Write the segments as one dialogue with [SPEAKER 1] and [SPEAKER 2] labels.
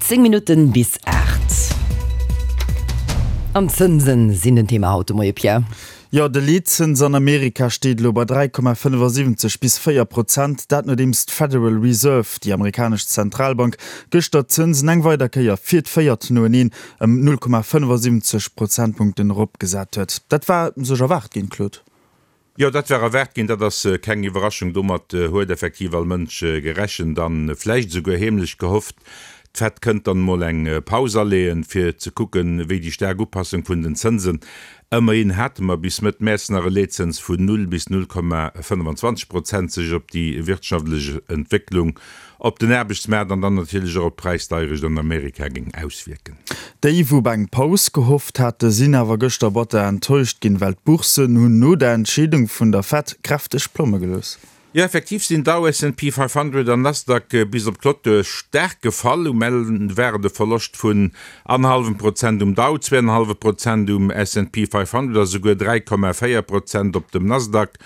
[SPEAKER 1] 10 Minutten bis 8. An d'Zënsen sinn den Thema haut de Moie, Pierre.
[SPEAKER 2] Jo, de Leetzëns an Amerika steet elo bei 3,75 bis 4 Prozent. Dat nodeems d'Federal Reserve, déi amerikanesch Zentralbank, gëschter d'Zënsen eng weider Kéier fir d'véiert noeneen ëm 0,75 Prozentpunkten eropgesat huet. Dat war sech erwaart ginn, Claude.
[SPEAKER 3] Jo, dat war erwaart ginn, dat ass keng Iwwerraschung. Domat huet effektiv all Mënsch gerechent a vläicht esouguer heemlech gehofft, d'Fed kënnt dann emol eng Paus aleeën, fir ze kucken, wéi déi staark Upassung vun den Zënsen, ëmmerhin hate mer bis Mëtt Mäerz nach e Leetzëns vun 0 bis 0,25 Prozent, sech op déi wirtschaftlech Entwécklung op den Aarbechtsmaart an dann natierlech och op d'Präisdeierecht an Amerika géing auswierken.
[SPEAKER 2] Déi, wou op eng Paus gehofft hate sinn awer gëschter batter enttäuscht ginn, well d'Bourssen hunn no der Entscheedung vun der Fed kräfteg Plomme gelooss.
[SPEAKER 3] Jo, effektiv sinn Dow, S&P 500 an Nasdaq bis op d'Clôture staark gefall. Um Enn war et e Verloscht vun annerhallwem Prozent um Dow, zweeanenhallwe Prozent um S&P 500 a souguer 3,4 Prozent op dem Nasdaq.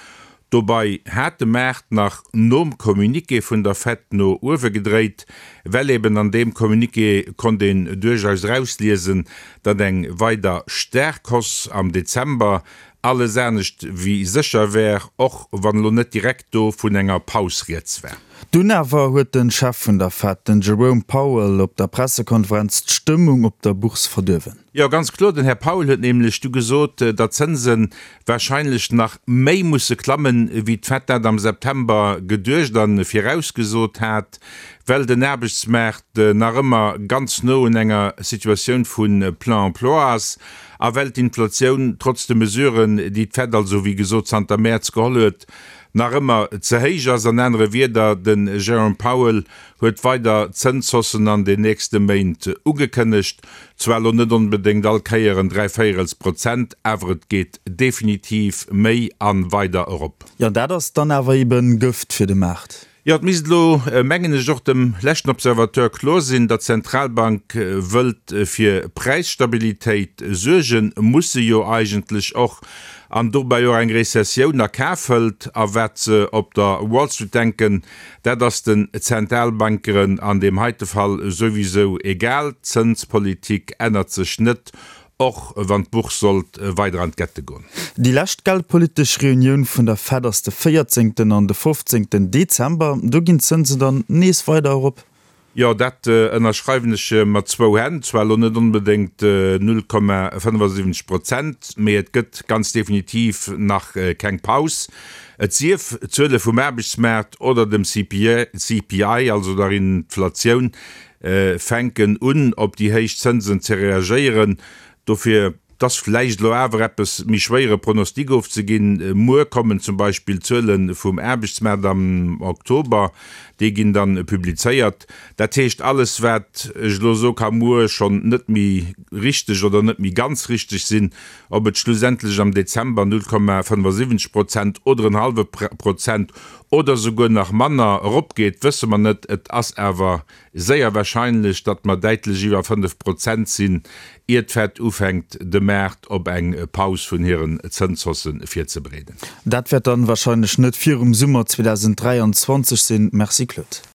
[SPEAKER 3] Dobei hat de Maart nach nom Communiqué vun der Fed no uewe gedréit, well eben an deem Communiqué konnt een duerchaus erausliesen, datt eng weider staark Hausse am Dezember alles anescht wéi sécher wär, och wann elo net direkt do vun enger Paus rieds war.
[SPEAKER 2] Dunn awer huet de Chef vun der Fed, den Jerome Powell, op der Pressekonferenz d'Stëmmung op der Bourse verduerwen.
[SPEAKER 3] Jo, ganz kloer, den Här Powell huet nämlech du gesot, datt d'Zënse warscheinlech nach méi musse klammen, wéi d'Fed dat am September geduecht a virausgesot hat, well den Aarbechtsmaart nach ëmmer ganz no un enger Situatioun vu plein emploi ass a well d'Inflatioun trotz de Mesuren, déi d'Fed also wéi gesot zanter Mäerz geholl huet, nach ëmmer ze héich ass. An anere Wierder, den Jerome Powell huet weider Zënshaussen an den nächste Méint ugekënnegt. Zwar elo net onbedéngt all Kéier en dräivéierels Prozent, awer et geet definitiv méi a weider erop.
[SPEAKER 2] Jo, dat ass dann awer eben Gëft fir de Maart.
[SPEAKER 3] Jo, et misst elo, mengen ech, och dem leschten Observateur kloer sinn, datt d'Zentralbank wëllt fir Präisstabilitéit suergen, muss se jo eigentlech och, an dobäi och eng Rezessioun a Kaf hëlt. A wat se op der Wall Street denken, Dat ass den Zentalbankeren an deem heite Fall souwisou egal, d'Zënspolitik ännert sech net, och wann d'Bourse sollt weider an d'Gette goen.
[SPEAKER 2] Déi lescht geldpolitesch Reunioun vun der Fed ass de 14 an de 15 Dezember. Do ginn d'Zënsen dann nees weider erop.
[SPEAKER 3] Jo, dat ënnerschreiwen ech mat zwou Hänn. Zwar elo net onbedéngt 0,75 Prozent, mee et gëtt ganz definitiv nach keng Paus. Et sief, d'Zuele vum Aarbechtsmaart oder dem CPI, also der Inflatioun, fänken un op déi héich Zënsen ze reagéieren. Dofir. 't ass vläicht elo awer eppes méi schwéier e Pronostic ofzeginn. Muer kommen zum Beispill d'Zuele vum Aarbechtsmaart am Oktober, déi ginn dann publizéiert. Dat heescht, alles wat ech elo soe ka muer schonn net méi richteg oder net méi ganz richteg sinn. Ob et schlussendlech am Dezember 0,75 Prozent oder en hallwe Prozent oder souguer nach manner eropgeet, wësse mer net. Et ass awer Séier warscheinlech, datt mer däitlech iwwer 5 Prozent sinn, ier d'Fed ufänkt, de Maart op eng Paus vun hiren Zënshausse virzebereeden.
[SPEAKER 2] Dat wäert dann warscheinlech net virum Summer 2023 sinn. Merci Claude.